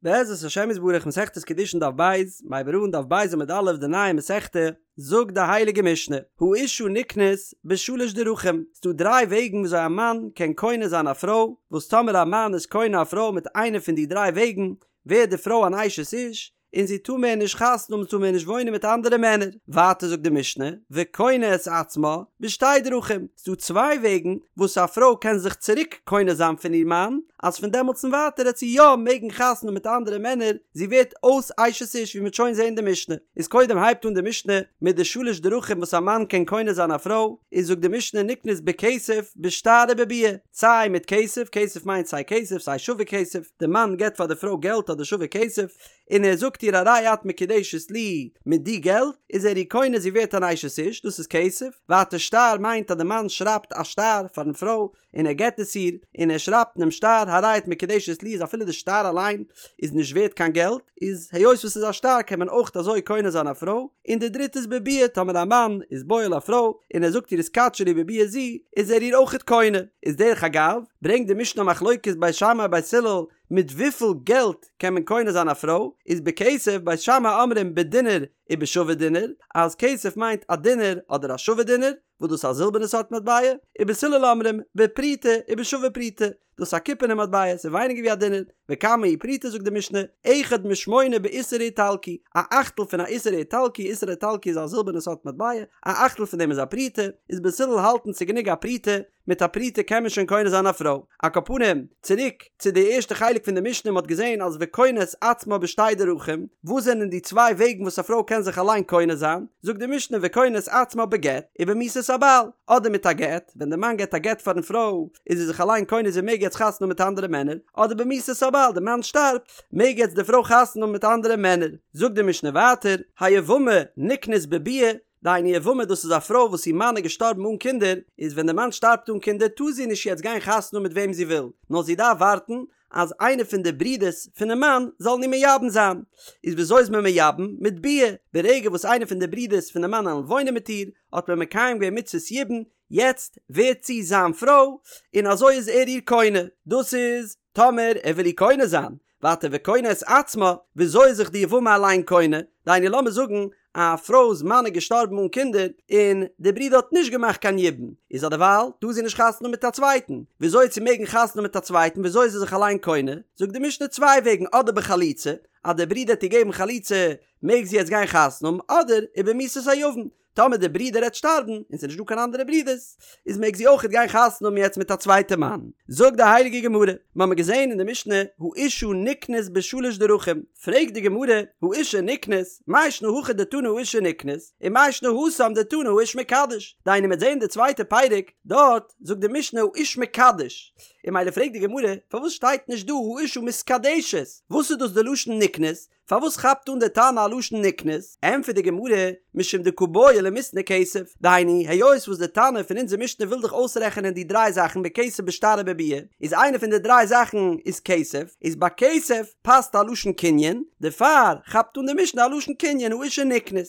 בעזרת השם יתברך מסכת קידושין דף ב', מ'הייבט אן דף ב' עמוד א' די נייע מסכתא, זאגט די הייליגע משנה, האשה נקנית בשלש דרכים, ס'דא דריי וועגן וויאזוי א מאן קען קונה זיין א פרוי, וואס טאמער א מאן איז קונה א פרוי מיט איינע פון די דריי וועגן, ווערט די פרוי אן אשת איש, און זי טאר מער נישט חתונה האבן, זי טאר מער נישט וואוינען מיט אנדערע מענער. ווייטער זאגט די משנה, וקונה את עצמה בשתי דרכים, ס'דא צוויי וועגן וואס א פרוי קען זיך צוריק קונה זיין פון איר מאן, אז פון דעמאלטס און ווייטער העט זי יא מעגן חתונה האבן מיט אנדערע מענער, זי ווערט אויס אשת איש ווי מ'וועט שוין זען די משנה. איז קודם הייבט אן די משנה מיט די שלש דרכים וואס א מאן קען קונה זיין א פרוי, איז זאגט די משנה נקנית בכסף, בשטר ובביאה, סיי מיט כסף, כסף מיינט סיי כסף סיי שווה כסף, די מאן געבט פאר די פרוי געלט אדער שווה כסף, און ער זאגט איר הרי את מקודשת לי מיט די געלט איז ער איר קונה זי ווערט אן אשת איש, דאס איז כסף, ווייטער שטר מיינט אז די מאן שרייבט א שטר פארן פרוי און ער געבט עס איר, און ער שרייבט אינעם שטר הרי את מקודשת לי איז אפילו די שטר אליין איז נישט ווערט קיין געלט, איז היות וואס ס'איז א שטר קען מען אויך אזוי קונה זיין א פרוי, און די דריטע איז בביאה טאמער א מאן איז בועל א פרוי און ער זאגט איר התקדשי לי בביאה זו איז ער איר אויכעט קונה, איז דרך אגב ברענגט די משנה א מחלוקת בית שמאי בית הלל מיט וויפיל געלט קען מען קונה זיין א פרוי, איז בכסף בית שמאי אומרים בדינר ובשווה דינר, אז כסף מיינט א דינר אדער א שווה דינר, וואס דאס איז א זילבערנע סארט מטבע, ובית הלל אומרים בפרוטה ובשווה פרוטה, דאס איז א קופערנע מטבע, ס'איז ווייניגער ווי א דינר, וכמה היא פרוטה זאגט די משנה, אחד משמונה באיסר האיטלקי, א אכטל פון א איסר האיטלקי, איסר האיטלקי איז א זילבערנע סארט מטבע, א אכטל פון דעם איז א פרוטה, איז בית הלל האלטן ס'איז גענוג א פרוטה, מיט א פרוטה קען מען שוין קונה זיין א פרוי. על כל פנים, צוריק צו די ערשטע חלק פון די משנה, מ'האט געזען אז וקונה את עצמה בשתי דרכים, וואס זענען די צוויי וועגן וואס א פרוי קען זיך אליין קונה זיין? זאגט די משנה וקונה את עצמה בגט ובמיתת הבעל, אדער מיט א גט, ווען די מאן געבט א גט פארן פרוי איז זי זיך אליין קונה זי מעג יעצט חתונה האבן מיט אנדערע מענער, אדער במיתת הבעל, די מאן שטארבט, מעג יעצט די פרוי חתונה האבן מיט אנדערע מענער. זאגט די משנה ווייטער, היבמה נקנית בביאה, דהיינו יבמה דאס איז א פרוי וואס איר מאן איז געשטארבן אן קינדער, איז ווען די מאן שטארבט אן קינדער טאר זי נישט יעצט גיין חתונה האבן מיט וועם זי וויל, נאר זי דארף ווארטן אז איינער פון די ברידערס פונעם מאן זאלן איר מייבם זיין. איז וויאזוי איז מען מייבם? מיט ביאה, ברגע וואס איינער פון די ברידערס פונעם מאן וועלן וואוינען מיט איר, האט מען מקיים געווען מצוות יבום, יעצט ווערט זי זיין פרוי, און אזוי איז ער איר קונה. דאס איז טאמער ער וויל איר קונה זיין. ווייטער וקונה את עצמה, וויאזוי איז זיך די יבמה אליין קונה? דהיינו לאמיר זאגן א פרוי'ס מאן איז געשטארבן אן קינדער, און די ברודער האט נישט געמאכט קיין יבום, איז אדערווייל טאר זי נישט חתונה האבן מיט א צווייטן, וויאזוי וועט זי מעגן חתונה האבן מיט א צווייטן, וויאזוי איז זי זיך אליין קונה? זאגט די משנה צוויי וועגן, אדער בחליצה, אז דער ברודער האט איר געגעבן חליצה מעג זי יעצט גיין חתונה האבן, אדער ובמיתת היבם, טאמער דער ברודער העט שטארבן און ס'איז נישט דא קיין אנדערע ברודערס, איז מעג זי אויכעט גיין חתונה האבן יעצט מיט א צווייטע מאן. זאגט די הייליגע גמרא, מ'האמיר געזען אין די משנה, האשה נקנית בשלש דרכים, פרעגט די גמרא, האשה נקנית, מאי שנא הכא דתנא האשה נקנית, ומאי שנא התם דתנא האיש מקדש, דהיינו מ'עט זען די צווייטע פרק, דארט זאגט די משנה האיש מקדש, און ממילא פרעגט די גמרא, פארוואס שטייט נישט דא האשה מתקדשת, וואס איז דאס די לשון נקנית, פארוואס כאפט אן די תנא א לשון נקנית? ענטפערט די גמרא, משום דקא בעי למיתני כסף, דהיינו, היות וואס די תנא פון אונזער משנה וויל דאך אויסרעכענען די דריי זאכן בכסף בשטר ובביאה, איז איינע פון די דריי זאכן איז כסף, איז ביי כסף פאסט א לשון קנין, דערפאר כאפט אן די משנה א לשון קנין האשה נקנית.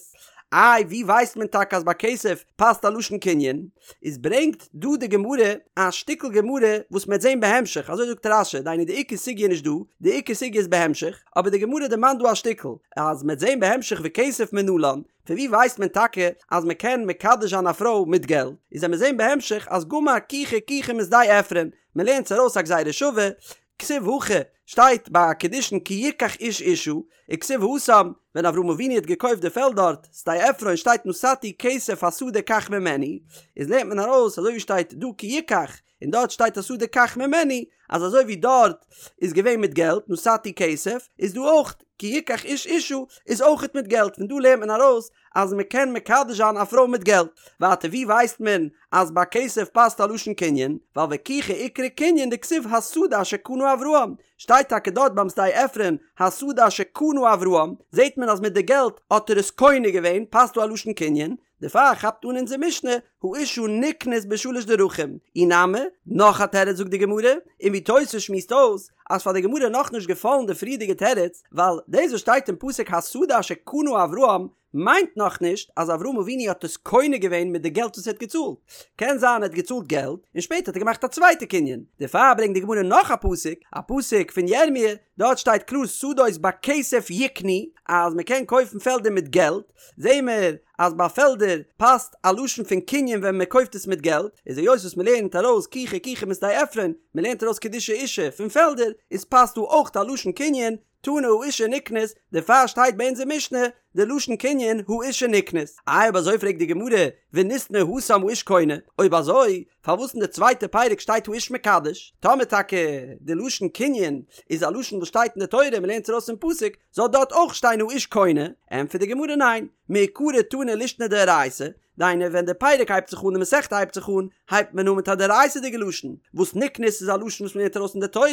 איי ווי ווייסט מען טאקע אז ביי כסף פאסט א לשון קנין? איז ברענגט דא די גמרא א שטיקל גמרא וואס מ'עט זען בהמשך, אזוי זאגט רש"י, דהיינו די עיקר סוגיא איז נישט דא, די עיקר סוגיא איז בהמשך, אבער די גמרא דערמאנט דא א שטיקל, אז מ'עט זען בהמשך וכסף מנלן, פון ווי ווייסט מען טאקע אז מ'קען מקדש זיין א פרוי מיט געלט, איז עמיר זען בהמשך אז גמר קיחה קיחה משדה עפרון, מ'לערנט עס ארויס א גזירה שווה, כתיב הכא, שטייט ביי קידושין כי יקח איש אשה, וכתיב התם, ווען אברהם אבינו האט געקויפט די פעלד דארט, שדה עפרון, שטייט נתתי כסף השדה קח ממני, איז לערנט מען ארויס אזוי ווי שטייט דא כי יקח, און דארט שטייט השדה קח ממני, אז אזוי ווי דארט איז געווען מיט געלט, נתתי כסף, איז דא אויך כי יקח איש אשה, איז אויכעט מיט געלט, פון דא לערנט מען ארויס אז מען קען מקדש זיין א פרוי מיט געלט. ווייטער ווי ווייסט מען אז ביי כסף פאסט א לשון קנין? ווייל וקיחה איקרי קנין דכתיב השדה אשר קנה אברהם, שטייט טאקע דארט ביים שדה עפרון השדה אשר קנה אברהם, זעט מען אז מיט די געלט האט ער עס קונה געווען, פאסט דא א לשון קנין, דערפאר כאפט אן אונזער משנה האשה נקנית בשלש דרכים. אי נמי, נאך א תירוץ זאגט די גמרא, און ווי תוס' שמועסט אויס אז פאר די גמרא איז נאכנישט געפאלן די פריערדיגע תירוץ, ווייל דאס וואס שטייט אין פסוק השדה אשר קנה אברהם מיינט נאכנישט אז אברהם אבינו האט עס קונה געווען מיט די געלט וואס ער האט געצאלט, קען זיין ער האט געצאלט געלט און שפעטער האט ער געמאכט א צווייטע קנין, דערפאר ברענגט די גמרא נאך א פסוק, א פסוק פון ירמי', דארט שטייט קלאר שדות בכסף יקנו, אז מען קען קויפן פעלדער מיט געלט, זעהן מיר אז ביי פעלדער פאסט א לשון פון קנין ווען מען קויפט עס מיט געלט, איז היות וואס מען לערנט ארויס קיחה קיחה משדה עפרון, מען לערנט ארויס קידושי אישה פון פעלדער, איז פאסט דא אויך א לשון קנין, תנא האשה נקנית, דערפאר שטייט ביי אונזער משנה די לשון קנין האשה נקנית. איי אויב אזוי פרעגט די גמרא, וניתני התם האיש קונה, אויב אזוי פארוואס אין די צווייטע פרק שטייט האיש מקדש? טאמער טאקע די לשון קנין איז א לשון וואס שטייט אין די תורה און מ'לערנט עס ארויס פון פסוק, זאל דארט אויך שטיין האיש קונה? ענטפערט די גמרא ניין, מעיקרא תנא לישנא דאורייתא, דהיינו ווען די פרק הייבט זיך אן די מסכתא הייבט זיך אן, הייבט מען אן מיט א דאורייתא'דיגע לשון, וואס נקנית איז א לשון וואס מ'לערנט ארויס אין די תורה,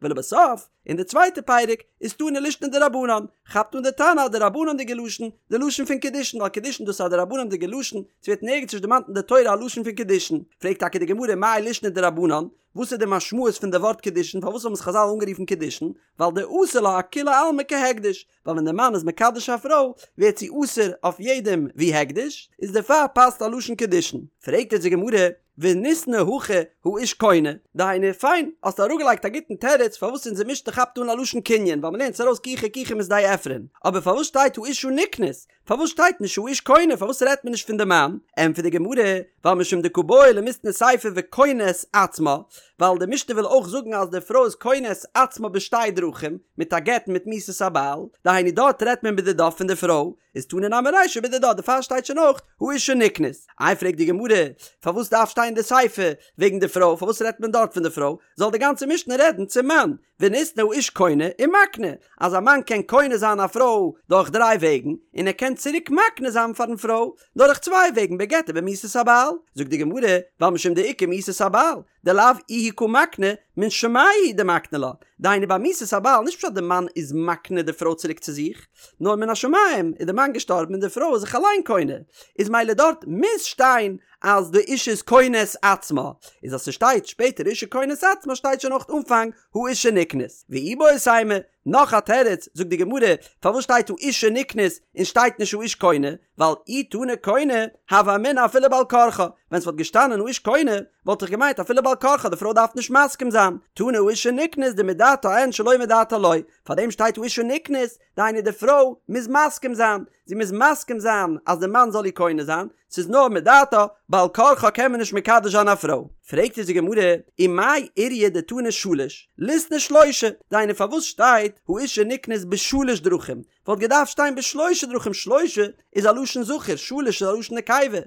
ולבסוף, אין די צווייטע פרק איז תנא לישנא דרבנן, כאפט אן די תנא א דרבנן'דיגע לשון, די לשון פון קידושין, ווייל קידושין דאס איז א דרבנן'דיגע לשון, ס'ווערט נערגעץ נישט דערמאנט אין די תורה א לשון פון קידושין. פרעגט טאקע די גמרא מאי לישנא דרבנן, וואס איז די משמעות פון די ווארט קידושין, פארוואס האבן עס חזל אנגערופן קידושין, ווייל דאסר לה אכולי עלמא כהקדש, ווייל ווען די מאן איז מקדש א פרוי ווערט זי אסור אויף יעדעם ווי הקדש, איז דערפאר פאסט א לשון קידושין. פרעגט אונז די גמרא, וניתני הכא האיש קונה, דהיינו פיין, האסט אראפגעלייגט א גוטן תירוץ פארוואס אונזער משנה כאפט אן א לשון קנין ווייל מ'לערנט עס ארויס קיחה קיחה משדה עפרון, אבער פארוואס שטייט האשה נקנית? פארוואס שטייט נישט האיש קונה? פארוואס רעדט מען נישט פון די מאן? ענטפערט די גמרא, ווייל משום דקא בעי למיתני סיפא וקונה את עצמה, ווייל די משנה וויל אויך זאגן אז די פרוי איז קונה את עצמה בשתי דרכים, מיט א גט און מיט מיתת הבעל, דהיינו דארט רעדט מען בדידה פון די פרוי, איז תנא נמי רישא בדידה, דערפאר שטייט שוין אויך האשה נקנית. איי פרעגט די גמרא, פארוואס דארף שטיין די סיפא וועגן די פרוי, פארוואס רעדט מען דארט פון די פרוי, זאל די גאנצע משנה רעדן צום מאן, וניתני האיש קונה ומקנה, אז א מאן קען קונה זיין א פרוי דורך דריי וועגן, און ער קען צוריק מקנה זיין פארן פרוי דורך צוויי וועגן בגט ובמיתת הבעל, זאגט די גמרא, ווייל משום דאיכא מיתת הבעל, דלאו איהו קא מקני, מן שמיא הוא דמקני לה, דהיינו ביי מיתת הבעל נישט פשט די מאן איז מקנה די פרוי צוריק צו זיך, נאר מן השמים איז די מאן געשטארבן און די פרוי איז זיך אליין קונה, איז מילא דארט מוז שטיין אז די אישה איז קונה את עצמה, איז אז ס'שטייט שפעטער אישה קונה את עצמה שטייט שוין אויך אנפאנג האשה נקנית. ואיבעית אימא, נאך א תירוץ, זאגט די גמרא, פארוואס שטייט האשה נקנית און שטייט נישט האיש קונה, ווייל אי תנא קונה, הוה אמינא אפילו בעל כרחה, ווען ס'וואלט געשטאנען האיש קונה, וואלט איך געמיינט אפילו בעל כרחה די פרוי דארף נישט מסכים זיין, תנא האשה נקנית דמדעתה אין שלא מדעתה לא, פארדעם שטייט האשה נקנית, דהיינו די פרוי מוז מסכים זיין, זי מוז מסכים זיין אז די מאן זאל איר קונה זיין, ס'איז נאר מדעתה, בעל כרחה קען מען נישט מקדש זיין א פרוי. פרעגט אונז די גמרא, ומאי איריא דתנא שלש, ליתני שלשה, דהיינו פארוואס שטייט האשה נקנית בשלש דרכים, וואלט געדארפט שטיין בשלושה דרכים, שלשה איז א לשון זכר, שלש איז א לשון נקבה,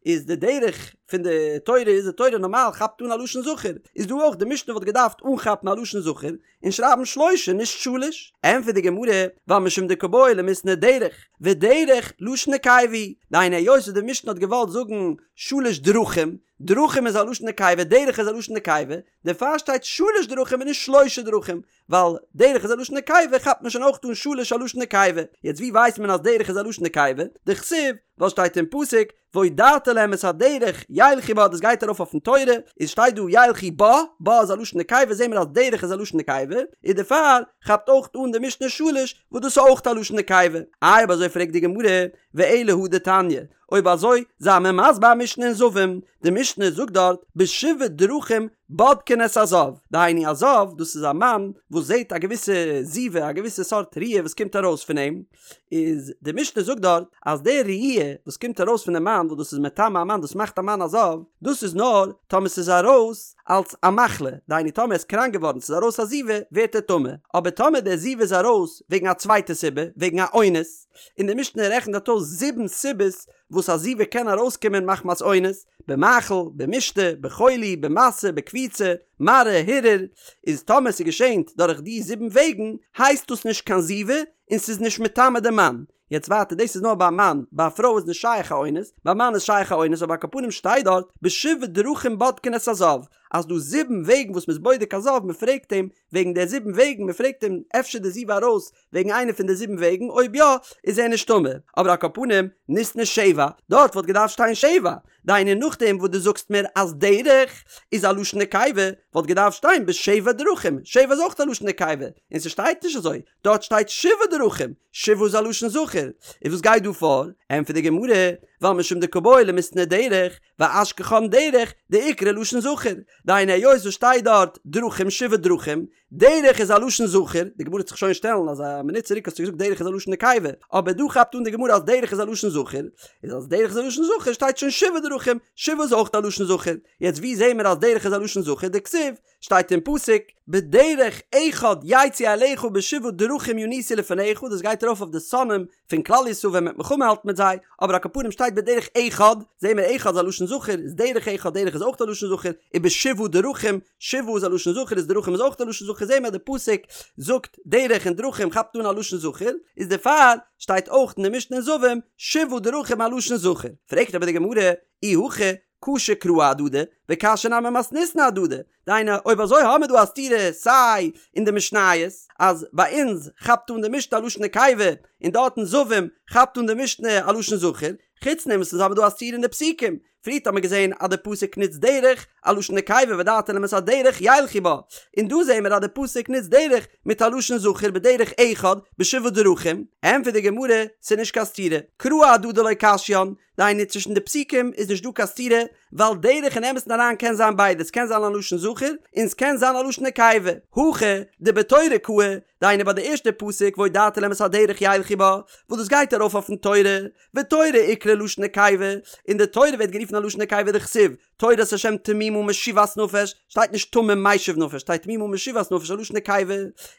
איז די דרך פון די תורה איז די תורה נארמאל כאפט אן א לשון זכר, איז דא אויך די משנה וואלט געדארפט אנכאפן א לשון זכר, און שרייבן שלשה נישט שלש. ענטפערט די גמרא, ווייל משום דקא בעי למיתני דרך, ודרך לשון נקבה היא, דהיינו היות וואס די משנה האט געוואלט זאגן שלש דרכים, דרכים איז א לשון נקבה דרך איז א לשון נקבה, דערפאר שטייט שלש דרכים און נישט שלשה דרכים, ווייל דרך איז א לשון נקבה כאפט מען שוין אויך אן שלש א לשון נקבה, יעצט ווי ווייסט מען אז דרך איז א לשון נקבה? דכתיב, ווייל שטייט אין פסוק, והודעת להם את הדרך ילכו בה דאס גייט ארויף אויפן תורה, איז שטייט דא ילכו בה, בה איז א לשון נקבה זעהן מיר אז דרך איז א לשון נקבה, איז דערפאר כאפט אויך אן די משנה שלש וואס דאס איז אויך א לשון נקבה. איי אויב אזוי פרעגט די גמרא, ואלא הא דתניא, אויב אזוי זיי מיר מסביר א משנה אין זבים, די משנה זאגט דארט בשבעה דרכים בודקין את הזב, דהיינו א זב דאס איז א מאן וואס זעהט א געוויסע זיבה א געוויסע סארט ראיה וואס קומט ארויס פון אים, איז די משנה זאגט דארט אז די ראי' וואס קומט ארויס פון די מאן וואס דאס איז מטמא א מאן דאס מאכט א מאן א זב, דאס איז נאר טאמער ס'איז ארויס אלס א מחלה, דהיינו טאמער ער איז קראנק געווארן ס'איז ארויס א זיבה ווערט ער טמא, אבער טאמער די זיבה איז ארויס וועגן א צווייטע סיבה, וועגן א אונס, און די משנה רעכנט דארט אויס זיבן סיבות וואס א זיבה קען ארויסקומען מחמת אונס, במאכל, במשתה, בחולי, במשא, בקפיצה, מראה, הרהור, איז טאמער ס'געשענט דורך די זיבן וועגן הייסט דאס נישט קיין זיבה, און ס'איז נישט מטמא די מאן. יעצט ווייטער דאס איז נאר ביי א מאן, ביי א פרוי איז נישט שייך א אונס, ביי א מאן איז שייך א אונס, אבער על כל פנים שטייט דארט בשבעה דרכים בודקין את הזב, אז דא זיבן וועגן וואס מ'איז בודק א זב, מ'פרעגט אים וועגן די זיבן וועגן, מ'פרעגט אים אפשר די זיבה ארויס וועגן איינע פון די זיבן וועגן, אויב יא איז ער נישט טמא, אבער על כל פנים ניתני שבע, דארט וואלט געדארפט שטיין שבע. דהיינו נאכדעם וואס דו זאגסט מיר אז דרך איז א לשון נקבה, וואלט געדארפט שטיין בשבע דרכים, שבע איז אויך א לשון נקבה, און ס'שטייט נישט אזוי, דארט שטייט שבעה דרכים, שבעה איז א לשון זכר, איז וואס גייט דא פאר? ענטפערט די גמרא, ווייל משום דקא בעי למיתני דרך, ואשכחן דרך דאיקרי לשון זכר, דהיינו היות וואס שטייט דארט דרכים שבעה דרכים, דרך איז א לשון זכר, די גמרא וועט זיך שוין שטעלן אז א מינוט צוריק האסטו געזאגט דרך איז א לשון נקבה, אבער דא כאפט אן די גמרא אז דרך איז א לשון זכר, איז אז דרך איז א לשון זכר שטייט שוין שבעה דרכים, שבעה איז אויך א לשון זכר, יעצט ווי זעהן מיר אז דרך איז א לשון זכר, דכתיב, שטייט אין פסוק, בדרך אחד יצאו אליך ובשבעה דרכים ינוסו לפניך, דאס גייט ארויף אויף די שונאים פון כלל ישראל ווען מ'וועט מלחמה האלטן מיט זיי, אבער על כל פנים שטייט בדרך אחד, זעהן מיר אחד איז א לשון זכר, איז דרך אחד, דרך איז אויך א לשון זכר, ובשבעה דרכים, שבעה איז א לשון זכר איז דרכים איז אויך א לשון זכר, זעהן מיר אז די פסוק זאגט דרך און דרכים כאפט אן א לשון זכר, איז דערפאר שטייט אויך אין די משנה אין זבים שבעה דרכים א לשון זכר. פרעגט אבער די גמרא, אי הכי קשו קראי אהדדי, וקשיא נמי מתניתין אהדדי, דהיינו אויב אזוי האמיר דא א סתירה סיי אין די משניות אז ביי אונז כאפט אן די משנה א לשון נקבה און דארט אין זבים כאפט אן די משנה א לשון זכר, חוץ דעם וואס אונז האמיר דא א סתירה אין די פסוקים, פריערט האמיר געזען אז די פסוק נוצט דרך א לשון נקבה והודעתם להם את הדרך ילכו בה, און דא זעהן מיר אז די פסוק נוצט דרך מיט א לשון זכר בדרך אחד בשבעה דרכים, ענטפערט די גמרא ס'איז נישט קיין סתירה, קראי אהדדי לא קשיין, דהיינו צווישן די פסוקים איז נישט דא קיין סתירה, ווייל דרך אין אמת'ן אריין קען זיין ביידע, ס'קען זיין א לשון זכר און ס'קען זיין א לשון נקבה, הכא דבתורה קאי, דהיינו ביי די ערשטע פסוק והודעתם להם את הדרך ילכו בה, וואס דאס גייט ארויף אויפן תורה, ותורה איקרי לשון נקבה, און די תורה ווערט גערופן א לשון נקבה דכתיב, תורת השם תמימה משיבת נפש, שטייט נישט תמים משיב נפש, שטייט תמימה משיבת נפש א לשון נקבה,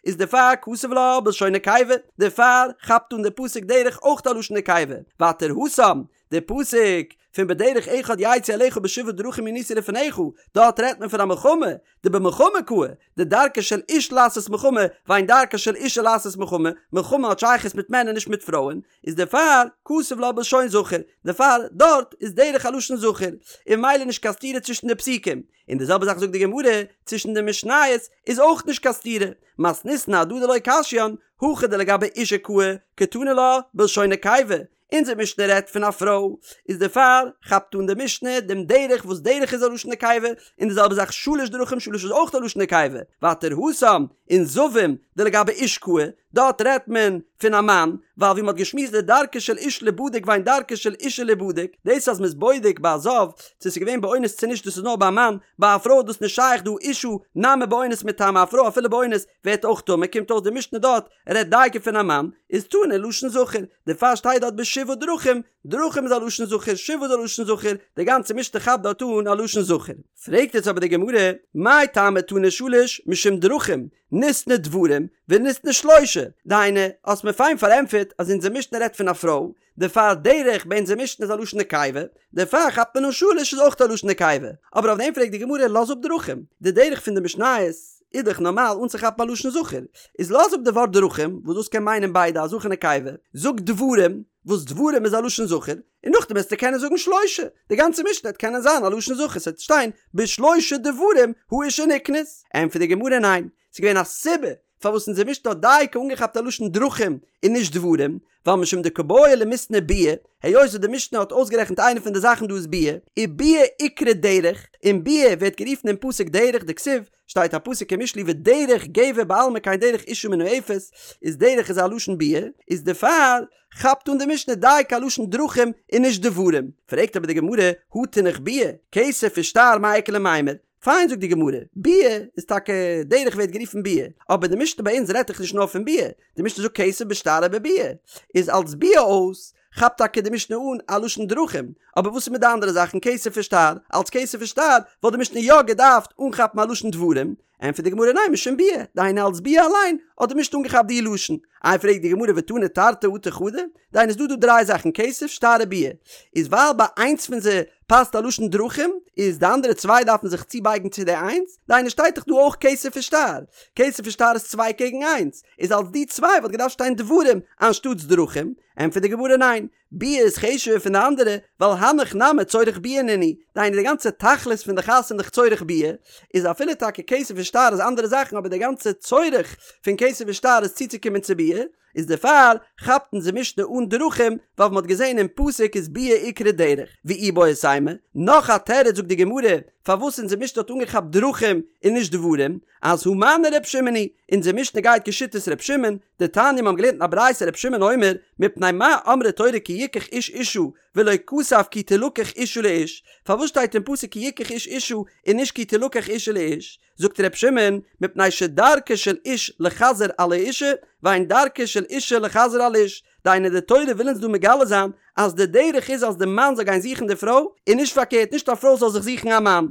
איז דערפאר כתב לה בלשון נקבה, דערפאר כאפט אן די פסוק דרך אויך א לשון נקבה, ווייטער התם, די פסוק פון בדרך אחד יצאו אליך ובשבעה דרכים ינוסו לפניך, דארט רעדט מען פון א מלחמה, דבמלחמה קאי, דדרכה של איש לעשות מלחמה, ואין דרכה של אישה לעשות מלחמה, מלחמה האט שייכות מיט מענער נישט מיט פרויען, איז דערפאר כתב לה בלשון זכר, דערפאר דארט איז דרך א לשון זכר, און ממילא נישט קיין סתירה צווישן די פסוקים, און די זעלבע זאך זאגט די גמרא, צווישן די משניות איז אויך נישט קיין סתירה, מתניתין אהדדי לא קשיין, הכא דלגבי אישה קאי, קתני לה בלשון נקבה, אונזער משנה רעדט פון א פרוי, איז דערפאר כאפט אן די משנה דעם דרך וואס דרך איז א לשון נקבה, און די זעלבע זאך שלש דרכים שלש איז אויך א לשון נקבה, ווייטער התם אין זבים דלגבי איש קאי, דארט רעדט מען פון א מאן, ווייל ווי מען האט געשמועסט דדרכה של איש ליבדק ואין דרכה של אישה ליבדק, דאס אז מען איז בודק ביי א זב צו ס'איז געווען באונס צו נישט דאס איז נאר ביי א מאן, ביי א פרוי איז דאס נישט שייך דהא אישה נמי באונס מיטמאה א פרוי אפילו באונס ווערט אויך טמא קומט אויס די משנה דארט רעדט דייקא פון א מאן, איז תני לשון זכר, דערפאר שטייט דארט בשבעה דרכים, דרכים איז א לשון זכר, שבעה איז א לשון זכר, די גאנצע משנה כאפט דארט אן א לשון זכר. פרעגט יעצט אבער די גמרא, מאי טעמא תני שלש משום דרכים, ניתני דברים וניתני שלשה, דהיינו, האסט מיר פיין פארענטפערט אז אונזער משנה רעדט פון א פרוי, דערפאר דרך ביי אונזער משנה איז א לשון נקבה, דערפאר כאפט מען אן שלש איז אויך א לשון נקבה, אבער אויף דעם פרעגט די גמרא לאז אפ דרכים, די דרך פון די משניות איז דאך נארמאל אנצוכאפן א לשון זכר, איז לאז אפ די ווארט דרכים וואס דאס קען מיינען ביידע א זכר נקבה, זאג דברים וואס דברים איז א לשון זכר, און נאכדעם וועסטו קענען זאגן שלשה, די גאנצע משנה וועט קענען זיין א לשון זכר, ס'וועט שטיין בשלושה דברים האשה נקנית. ענטפערט די גמרא ניין, ס'איז געווען א סיבה פארוואס אונזער משנה האט דייקא אנגעכאפט א לשון דרכים און נישט דברים, ווייל משום דקא בעי למיתני ביאה, היות וואס די משנה האט אויסגערעכנט איינע פון די זאכן דא איז ביאה, וביאה איקרי דרך, און ביאה ווערט גערופן אין פסוק דרך דכתיב, שטייט א פסוק אין משלי ודרך גבר בעלמא כן דרך אשה מנאפת, איז דרך איז א לשון ביאה, איז דערפאר כאפט אן די משנה דייקא א לשון דרכים און נישט דברים. פרעגט אבער די גמרא, הא תינח ביאה, כסף ושטר מאי איכא למימר, פיין זאגט די גמרא, ביאה איז טאקע דרך ווערט גערופן ביאה, אבער די משנה ביי אונז רעדט דאך נישט נאר פון ביאה, די משנה זאגט כסף בשטר ובביאה, איז אלס ביאה אויס כאפט טאקע די משנה אן א לשון דרכים, אבער וואס איז מיט די אנדערע זאכן כסף ושטר, אלס כסף ושטר וואלט די משנה יא געדארפט אנכאפן א לשון דברים, ענטפערט די גמרא ניין משום ביאה, דהיינו אלס ביאה אליין האט די משנה אנגעכאפט די לשון. איי פרעגט די גמרא ותני תרתי אטו חדא, דהיינו ס'דא דא דריי זאכן כסף שטר וביאה, איז ווייל ביי איינס פון זיי פאסט א לשון דרכים, איז די אנדערע צוויי דארפן זיך צובייגן צו די איינס, דהיינו שטייט דאך דא אויך כסף ושטר, כסף ושטר איז צוויי קעגן איינס, איז אלס די צוויי וואלט געדארפט שטיין דברים אנשטאטס דרכים, ענטפערט די גמרא ניין, ביאה איז חשוב'ער פון די אנדערע, ווייל הנך נמי צורך ביאה נינהו, דהיינו די גאנצע תכלית פון די חתונה איז דאך צורך ביאה, איז אפילו טאקע כסף און שטר איז אנדערע זאכן אבער די גאנצע צורך פון כסף און שטר איז צוצוקומען צו ביאה, איז דערפאר כאפט אונזער משנה אן דרכים ווייל מ'האט געזען אין פסוק איז ביאה איקרי דרך, ואיבעית אימא, נאך א תירוץ זאגט די גמרא פארוואס אונזער משנה האט אנגעכאפט דרכים און נישט דברים, אז הא מני ר' שמעון היא, אונזער משנה גייט כשיטת ר' שמעון, דתניא מ'האבן געלערנט אין א ברייתא ר' שמעון אומר, מפני מה אמרה תורה כי יקח איש אשה ולא כתב כי תלקח אשה לאיש, פארוואס שטייט אין פסוק כי יקח איש אשה און נישט כי תלקח אשה לאיש? זאגט ר' שמעון, מפני שדרכה של איש לחזר על האשה, ואין דרכה של אשה לחזר על איש, דהיינו די תורה וויל אונז דא מגלה זיין אז די דרך איז אז די מאן זאל גיין זוכן די פרוי, און נישט פארקערט נישט א פרוי זאל זיך זוכן א מאן.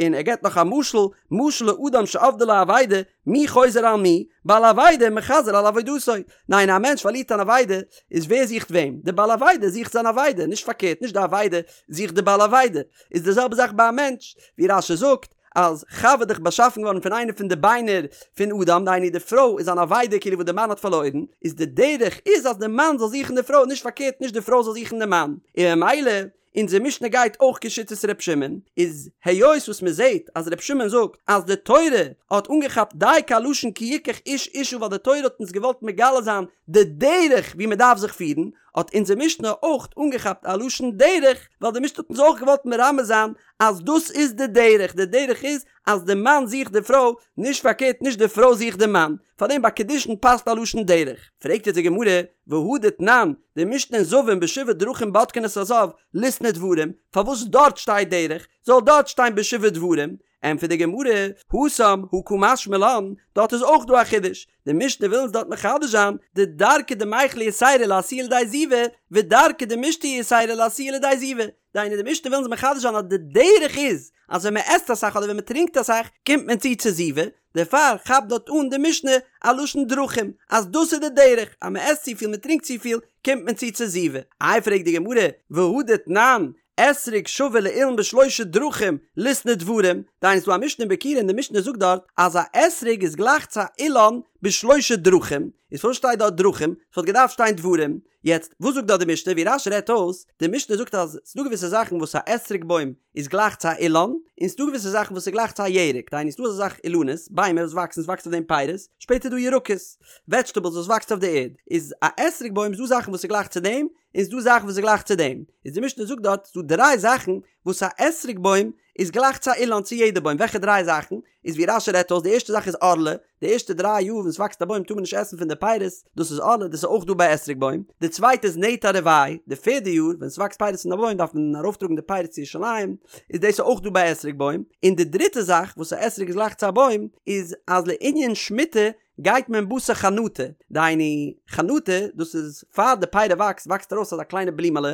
און ער געבט נאך א משל, משל לאדם שאבדה לו אבידה, מי חוזר על מי? בעל אבידה מחזר על אבידתו. ניין א מענטש פארלירט אן אבידה, איז ווער זוכט וועם? די בעל אבידה זוכט זיין אבידה, נישט פארקערט נישט די אבידה זוכט די בעל אבידה. איז די זעלבע זאך ביי א מענטש, ווי רש"י זאגט, אז חוה איז דאך באשאפן געווארן פון איינע פון די ביינער פון אדם, דהיינו די פרוי איז אן אבידה כאילו וואס די מאן האט פארלוירן, איז די דרך איז אז די מאן זאל זוכן די פרוי, נישט פארקערט נישט די פרוי זאל זוכן די מאן, און ממילא אונזער משנה גייט אויך כשיטת ר' שמעון, איז היות וואס מען זעט אז ר' שמעון זאגט אז די תורה האט אנגעכאפט דייקא א לשון כי יקח איש אשה ווייל די תורה האט אונז געוואלט מגלה זיין די דרך ווי מען דארף זיך פירן, האט אונזער משנה אויך אנגעכאפט א לשון דרך ווייל די משנה האט אונז אויך געוואלט מרמז זיין אז דאס איז די דרך, די דרך איז אז די מאן זוכט די פרוי, נישט פארקערט נישט די פרוי זוכט די מאן, פארדעם ביי קידושין פאסט א לשון דרך. פרעגט יעצט די גמרא, והא דתנן, די משנה אין זבים בשבעה דרכים בודקין את הזב, ליתני דברים, פארוואס דארט שטייט דרך, זאל דארט שטיין בשבעה דברים? ענטפערט די גמרא, התם הא קא משמע לן, דארט איז אויך דא א חידוש, די משנה וויל אונז דארט מחדש זיין, דדרכא דמיכלא יתירא לאתויי לידי זיבה, ודרכא דמישתיא יתירא לאתויי לידי זיבה, דהיינו די משנה וויל אונז מחדש זיין אז די דרך איז אז ווען מען עסט אסאך אדער ווען מען טרינקט אסאך קומט מען צו צו זיבה, דערפאר כאפט דארט אן די משנה א לשון דרכים אז דאס איז די דרך אז מען עסט צופיל מען טרינקט צופיל קומט מען צו צו זיבה. איי פרעגט די גמרא, והא דתנן, אתרוג שווה לאילן בשלושה דרכים ליתני דברים, דהיינו ס'דא א משנה אין ביכורים און די משנה זאגט דארט אז א אתרוג איז גלייך צו א אילן בשלושה דרכים, איז פארוואס שטייט דארט דרכים? ס'וואלט געדארפט שטיין דברים, יעצט, וואס זאגט דארט די משנה? ווי רש"י רעדט אויס, די משנה זאגט אז ס'דא געוויסע זאכן וואס א אתרוג בוים איז גלייך צו א אילן, און ס'דא געוויסע זאכן וואס איז גלייך צו א ירק, דהיינו ס'דא אזא זאך אילנות, ביימער וואס וואקסן, ס'וואקסט אויף דעם פירות, שפעטער איז דא ירקות, וועדזשטעבלס וואס וואקסט אויף די ערד, איז א אתרוג בוים איז דא זאכן וואס איז גלייך צו דעם, און ס'דא זאכן וואס איז גלייך צו דעם, איז די משנה זאגט דארט ס'דא דריי זאכן וואס א אתרוג בוים איז גלייך צו א אילן צו יעדע בוים, וועלכע דריי זאכן? איז ווי רש"י רעדט אויס די ערשטע זאך איז ערלה, די ערשטע דריי יאר ווען ס'וואקסט א בוים טאר מען נישט עסן פון די פירות, דאס איז ערלה, דאס איז אויך דא ביי אתרוג בוים, די צווייטע איז נטע רבעי, די פערדע יאר ווען ס'וואקסט פירות פון א בוים דארף מען ארויפטראגן די פירות צו ירושלים, איז דאס אויך דא ביי אתרוג בוים, און די דריטע זאך וואס א אתרוג איז גלייך צו א בוים איז אז לענין שמיטה גייט מען בתר חנטה, דהיינו חנטה דאס איז פאר די פירי וואקסט וואקסט ארויס אזא קליינע בלימעלע,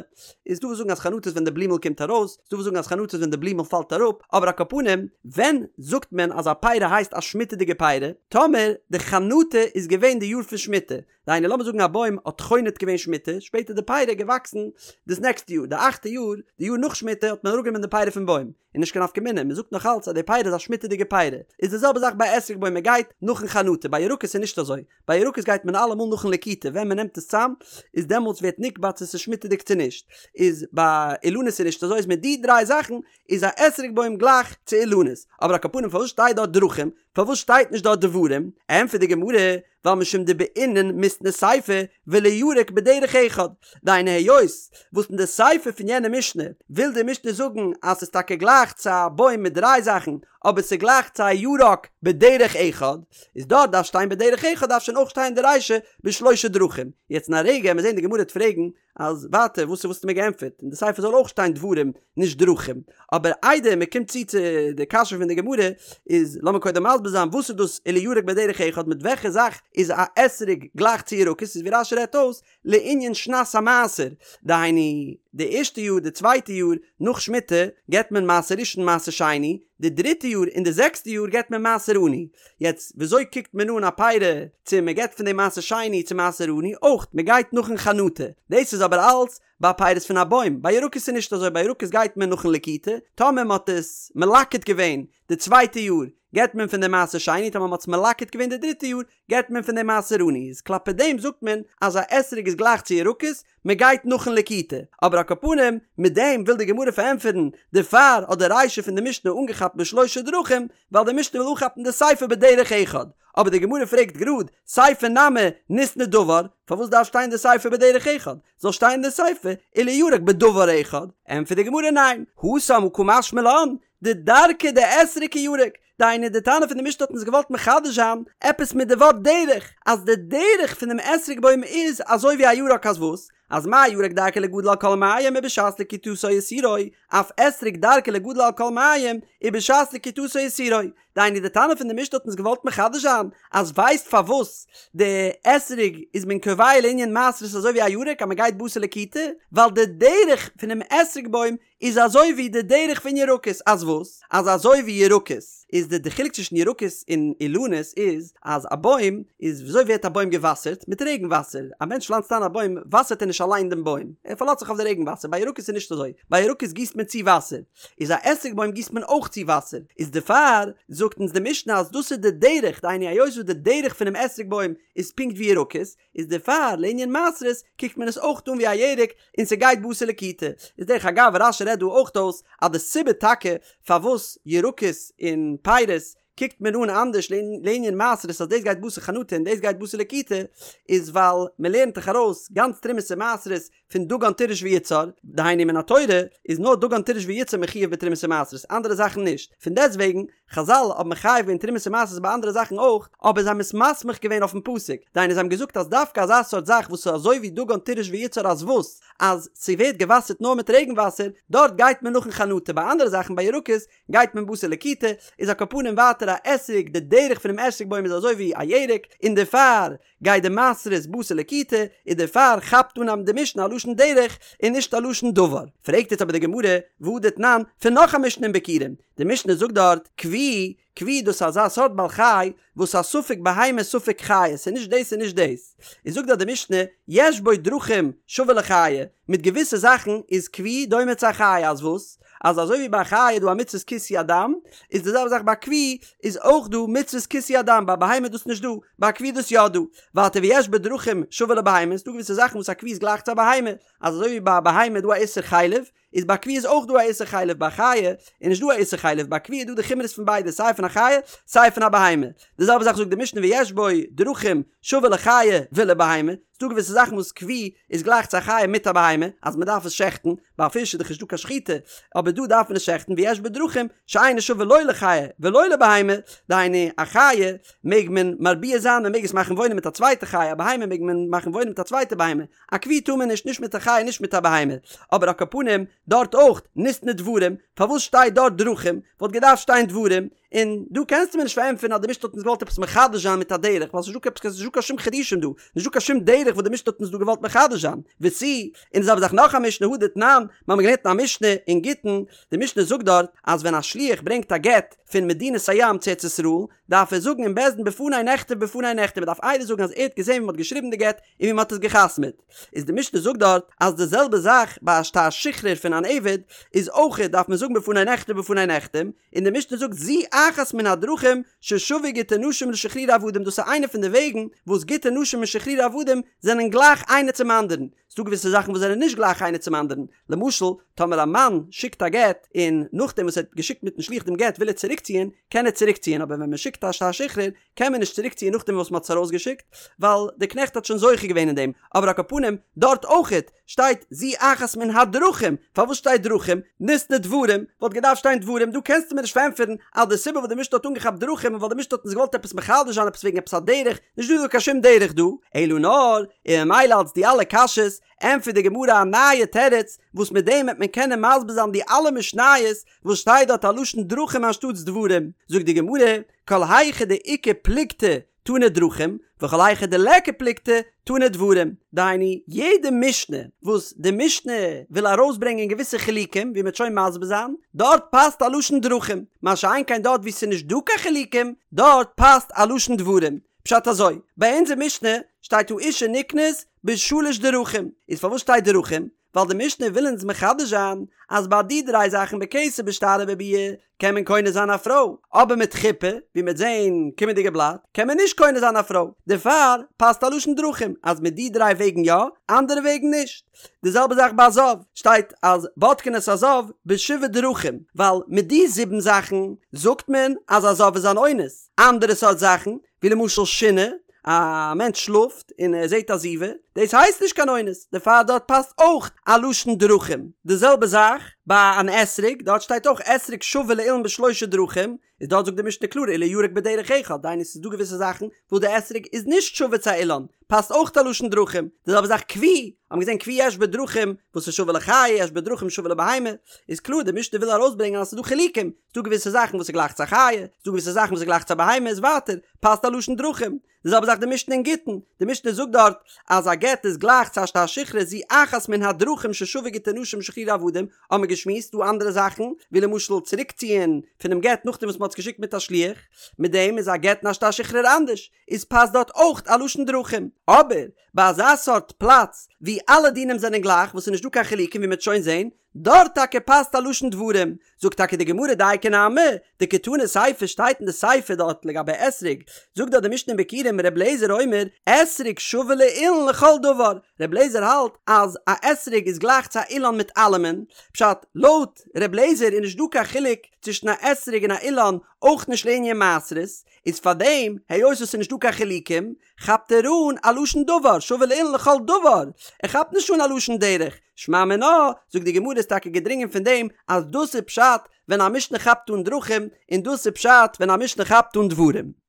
איז דא וואס זאגן אז חנטה איז ווען די בלימעל קומט ארויס, ס'דא וואס זאגן אז חנטה איז ווען די בלימעל פאלט אראפ, אבער על כל פנים ווען זאגט מען אז א פירי הייסט א שמיטה'דיגע פירי? טאמער די חנטה איז געווען די יאר פון שמיטה, דהיינו לאמיר זאגן א בוים האט חונט געווען שמיטה, שפעטער די פירי געוואקסן דאס נעקסטע יאר, די אכטע יאר, די יאר נאך שמיטה האט מען אראפגענומען די פירי פון בוים, איז נישט קיין נפקא מינה, מען זאגט נאך אלץ אז די פירי איז א שמיטה'דיגע פירי, איז די זעלבע זאך ביי אתרוג בוים מען גייט נאכן חנטה, ביי ירקות איז נישט אזוי, ביי ירקות גייט מען אלעמאל נאכן לקיטה, ווען מען נעמט עס צאם איז דעמאלטס ווערט נקבע צו ס'איז שמיטה'דיג צו נישט, איז ביי אילנות איז נישט אזוי, איז מיט די דריי זאכן איז א אתרוג בוים גלייך צו אילנות, אבער על כל פנים פארוואס שטייט דארט דרכים, פארוואס שטייט נישט דארט דברים, ענטפערט די גמרא, ווייל משום דבעינן מיתני סיפא ולירק בדרך אחד, דהיינו היות וואס אין די סיפא פון יענע משנה וויל די משנה זאגן אז ס'איז טאקע גלייך צו א בוים מיט דריי זאכן אבער ס'איז גלייך צו א ירק בדרך אחד, איז דארט דארף שטיין בדרך אחד דארף שוין אויך שטיין די רישא בשלושה דרכים, יעצט אין א רגע עמיר זעהן די גמרא וועט פרעגן אז ווייטער וואס האסטו מיר געענטפערט אין די סיפא זאל אויך שטיין דברים נישט דרכים, אבער איידער מען קומט צו צו די קשיא פון די גמרא איז לאמיר קודם מסביר זיין וואס איז דאס ולירק בדרך אחד מיט וועלכע זאך איז א אתרוג גלייך צו ירקות איז ווי רש"י רעדט אויס לענין שנת המעשר דהיינו די ערשטע יאר די צווייטע יאר נאך שמיטה געבט מען מעשר ראשון מעשר שני די דריטע יאר און די זעקסטע יאר געבט מען מעשר עני. יעצט וויאזוי קוקט מען אן א פירי צו מען געבט פון דעם מעשר שני צו מעשר עני? אויך מען גייט נאכן חנטה. דאס איז אבער אלץ ביי פירות פון א בוים. ביי ירקות איז נישט אזוי, ביי ירקות גייט מען נאכן לקיטה, טאמער מען האט עס מלקט געווען די צווייטע יאר געבט מען פון דעם מעשר שני, טאמער מען האט עס מלקט געווען די דריטע יאר געבט מען פון דעם מעשר עני. איז כלפי דעם זאגט מען אז א אתרוג איז גלייך צו ירקות, מען גייט נאכן לקיטה, אבער על על כל פנים, מיט דעם וויל די גמרא פארענטפערן, דערפאר האט די רישא פון די משנה אנגעכאפט בשלושה דרכים, ווייל די משנה וויל אנכאפן די סיפא בדרך אחד. אבער די גמרא פרעגט גראד, סיפא נמי ניתני דבר, פארוואס דארף שטיין די סיפא בדרך אחד? זאל שטיין די סיפא ולירק בדבר אחד. ענטפערט די גמרא ניין, התם הא קא משמע לן, דדרכיה דאתרוג כירק, דהיינו די תנא פון די משנה האט אונז געוואלט מחדש זיין עפעס מיט די ווארט דרך, אז די דרך פון דעם אתרוג בוים איז אזוי ווי א ירק אז וואס? אז מה ירק דרכו ליגדל על כל מים ובשעת לקיטתו אסורו, אף אתרוג דרכו ליגדל על כל מים ובשעת לקיטתו אסורו. דהיינו די תנא פון די משנה האט אונז געוואלט מחדש זיין אז ווייסט פארוואס די אתרוג איז מען קובע לענין מעשרות אזוי ווי א ירק אז מען גייט בתר לקיטה ווייל די דרך פונעם אתרוג בוים איז אזוי ווי די דרך פון ירקות, אז וואס? אז אזוי ווי ירקות איז די די חילוק צווישן ירקות און אילנות איז אז א בוים איז וויאזוי ווערט א בוים געוואסערט? מיט רעגן וואסער, א מענטש פלאנצט איין א בוים וואסערט ער נישט אליין דעם בוים, ער פארלאזט זיך אויף די רעגן וואסער, ביי ירקות איז נישט אזוי, ביי ירקות גיסט מען צו וואסער, איז א אתרוג בוים גיסט מען אויך צו וואסער, איז דערפאר זאגט אונז די משנה אז דאס איז די דרך, דהיינו היות וואס די דרך פונעם אתרוג בוים איז פונקט ווי ירקות, איז דערפאר לענין מעשרות קוקט מען עס אויך אן ווי א ירק און ס'גייט בתר לקיטה. איז דרך אגב רש"י רעדט דא אויך אויס אז די סיבה טאקע פארוואס ירקות און פירות קוקט מען אן אנדערש לענין מעשרות אז דאס גייט בתר חנטה און דאס גייט בתר לקיטה איז ווייל מ'לערנט דאך ארויס גאנץ תרומות און מעשרות פון דגן תירוש ויצהר, דהיינו מן התורה איז נאר דגן תירוש ויצהר מחויב בתרומות ומעשרות אנדערע זאכן נישט, פון דעסט וועגן חזל האבן מחייב געווען תרומות ומעשרות ביי אנדערע זאכן אויך, אבער זיי האבן עס מסמיך געווען אויפן פסוק, דהיינו זיי האבן געזאגט אז דווקא אזא סארט זאך וואס איז אזוי ווי דגן תירוש ויצהר אז וואס? אז ס'ווערט געוואסערט נאר מיט רעגן וואסער, דארט גייט מען נאכן חנטה, ביי אנדערע זאכן ביי ירקות גייט מען בתר לקיטה, איז על כל פנים ווייטער א אתרוג, די דרך פונעם אתרוג בוים איז אזוי ווי א ירק, און דערפאר גייט די מעשרות בתר לקיטה, און דערפאר כאפט אן די משנה א לשון דרך און נישט א לשון דבר. פרעגט יעצט אבער די גמרא, והא דתנן, פון נאך א משנה אין ביכורים, די משנה זאגט דארט, כוי, כוי דאס איז אזא סארט בעל חי וואס איז א ספק בהמה ספק חיה, ס'איז נישט דאס און נישט דאס, איז זאגט דארט די משנה, יש בו דרכים שווה לחיה, מיט געוויסע זאכן איז כוי דומה צו א חיה, אז וואס? אז אזוי ווי ביי א חיה איז דא א מצוות כיסוי הדם, איז די זעלבע זאך ביי כוי איז אויך דא מצוות כיסוי הדם, ביי בהמה איז דאס נישט דא, ביי כוי איז דאס יא דא. ווייטער ויש בו דרכים שווה לבהמה, ס'דא געוויסע זאכן וואס א כוי איז גלייך צו א בהמה, אז אזוי ווי ביי א בהמה איז דא א איסור חלב, איז ביי כוי איז אויך דא א איסור חלב, ביי חיה איז נישט דא א איסור חלב, ביי כוי איז דא די חומרות פון ביידע סיי פון א חיה סיי פון א בהמה. די זעלבע זאך זאגט די משנה ויש בו דרכים שווה לחיה ולבהמה, ס'דא געוויסע זאכן וואס כוי איז גלייך צו א חיה מיט א בהמה, אז מ'דארף עס שעכטן, ביי א פיש איז דאך נישטא קיין שחיטה, אבער דא דארף מען עס שעכטן, ויש בו דרכים שאינו שווה לא לחיה ולא לבהמה, דהיינו א חיה מעג מען מרביע זיין, מען מעג עס מאכן וואוינען מיט א צווייטע חיה, א בהמה מעג מען מאכן וואוינען מיט א צווייטע בהמה, א כוי טאר מען נישט, נישט מיט א חיה נישט מיט א בהמה, אבער על כל פנים דארט אויך, ניתני דברים, פארוואס שטייט דארט דרכים, וואלט געדארפט שטיין דברים, און דא קענסטו מיר נישט פארענטפערן אז די משנה האט אונז געוואלט עפעס מחדש זיין מיט א דרך, ווייל ס'נישט דא קיין ס'נישט דא קיין שום חידושים דא, נישט דא קיין שום דרך וואס די משנה האט אונז דא געוואלט מחדש זיין, ותו, און די זעלבע זאך נאך א משנה הא דתנן, מיר האבן געלערנט אין א משנה אין גיטין, די משנה זאגט דארט אז ווען א שליח ברענגט א גט פון מדינת הים צו ארץ ישראל, דארף ער זאגן אין בית דין בפני נכתב בפני נחתם, מען דארף עדות זאגן אז ער האט געזען ווי מען האט געשריבן די גט און ווי מען האט עס גע'חתמ'עט. איז די משנה זאגט דארט אז די זעלבע זאך ביי א שטר שחרור פון אן עבד איז אויכעט דארף מען זאגן בפני נכתב בפני נחתם, און די משנה זאגט זו אחת מן הדרכים ששוו גיטי נשים לשחרורי עבדים דאס איז איינע פון די וועגן וואס גיטי נשים און שחרורי עבדים זענען גלייך איינער צום אנדערן, ס'דא געוויסע זאכן וואס זענען נישט גלייך איינער צום אנדערן, למשל טאמער א מאן שיקט א גט און נאכדעם וואס ער האט געשיקט מיטן שליח דעם גט וויל ער צוריקציען קען ער צוריקציען אבער ווען מען שיקט א שטר שחרור קען מען נישט צוריקציען נאכדעם וואס מען האט עס ארויסגעשיקט ווייל די קנעכט האט שוין זוכה געווען אין דעם, אבער על כל פנים דארט אויכעט שטייט זו אחת מן הדרכים, פארוואס שטייט דרכים? ניתני דברים, וואלט געדארפט שטיין דברים, דא קענסטו מיר נישט פארענטפערן אז די סיבה וואס די משנה האט אנגעכאפט דרכים איז ווייל די משנה האט אונז געוואלט עפעס מחדש זיין עפעס וועגן עפעס א דרך, נישט דא דא קיין שום דרך דא, אלא נאר, און ממילא אלס די אלע קשיות, ענטפערט די גמרא א נייע תירוץ, וואס מיט דעם וועט מען קענען מסביר זיין די אלע משניות וואס שטייט דארט א לשון דרכים אנשטאטס דברים, זאגט די גמרא, כל היכא דאיכא פלוגתא תנא דרכים, וכל היכא דליכא פלוגתא תנא דברים. דהיינו, יעדע משנה וואס די משנה וויל ארויסברענגען געוויסע חילוקים, ווי מ'וועט שוין מסביר זיין, דארט פאסט א לשון דרכים, מה שאין כן דארט וואו ס'איז נישט דא קיין חילוקים, דארט פאסט א לשון דברים. פשט אזוי, ביי אונזער משנה שטייט האשה נקנית בשלש דרכים, איז פארוואס שטייט דרכים? ווייל די משנה וויל אונז מחדש זיין אז ביי די דריי זאכן בכסף בשטר ובביאה קען מען קונה זיין א פרוי, אבער מיט חופה, ווי מ'וועט זעהן קומענדיגע בלאט, קען מען נישט קונה זיין א פרוי, דערפאר פאסט א לשון דרכים אז מיט די דריי וועגן יא, אנדערע וועגן נישט. די זעלבע זאך ביי א זב, שטייט אז בודקין את הזב בשבעה דרכים, ווייל מיט די זיבן זאכן זאגט מען אז א זב איז אן אונס, אנדערע סארט זאכן, ווי למשל שינה, א מענטש שלאפט און ער זעט א זיבה, דאס הייסט נישט קיין אונס, דערפאר דארט פאסט אויך א לשון דרכים. די זעלבע זאך ביי אן אתרוג, דארט שטייט אויך אתרוג שווה לאילן בשלושה דרכים, איז דארט זאגט די משנה קלאר ולירק בדרך אחד, דהיינו ס'איז דא געוויסע זאכן וואס די אתרוג איז נישט שווה צו א אילן, פאסט אויך א לשון דרכים. די זעלבע זאך כוי, האבן געזען כוי יש בו דרכים וואס איז שווה לחיה יש בו דרכים שווה לבהמה, איז קלאר די משנה וויל ארויסברענגען אז ס'איז דא חילוקים, ס'דא געוויסע זאכן וואס איז גלייך צו א חיה, ס'דא געוויסע זאכן וואס איז גלייך צו א בהמה, איז ווייטער פאסט א לשון דרכים. די זעלבע זאך די משנה אין גיטין, די משנה זאגט דארט אז א גט איז גלייך צו א שטר שחרור זו אחת מן הדרכים ששווה גיטי נשים ושחרורי עבדים, האבן מיר געשמועסט דא אנדערע זאכן, ווי למשל צוריקציען פונעם גט נאכדעם וואס מ'האט עס געשיקט מיט א שליח, מיט דעם איז א גט און א שטר שחרור אנדערש, איז פאסט דארט אויך א לשון דרכים. אבער ביי אזא סארט פלאץ ווי אלע דינים זענען גלייך וואס ס'איז נישט דא קיין חילוקים ווי מ'וועט שוין זען, דארט טאקע פאסט א לשון דברים, זאגט טאקע די גמרא דייקא נמי, דקתני סיפא שטייט אין די סיפא דארט לגבי אתרוג, זאגט דארט די משנה אין ביכורים ר' אליעזר אומר אתרוג שווה לאילן לכל דבר, ר' אליעזר האלט אז א אתרוג איז גלייך צו א אילן מיט אלעמען, פשט, לויט ר' אליעזר איז נישט דא קיין חילוק צווישן א אתרוג און א אילן, אויך נישט לענין מעשרות, איז פארדעם היות עס איז נישט דא קיין חילוקים, כאפט ער אן א לשון דבר, שווה לאילן לכל דבר, ער כאפט נישט אן א לשון דרך, שמע מינה, זאגט די גמרא איז טאקע געדרינגען פון דעם אז דאס איז פשט ווען א משנה כאפט אן דרכים, און דאס איז פשט ווען א משנה כאפט אן דברים.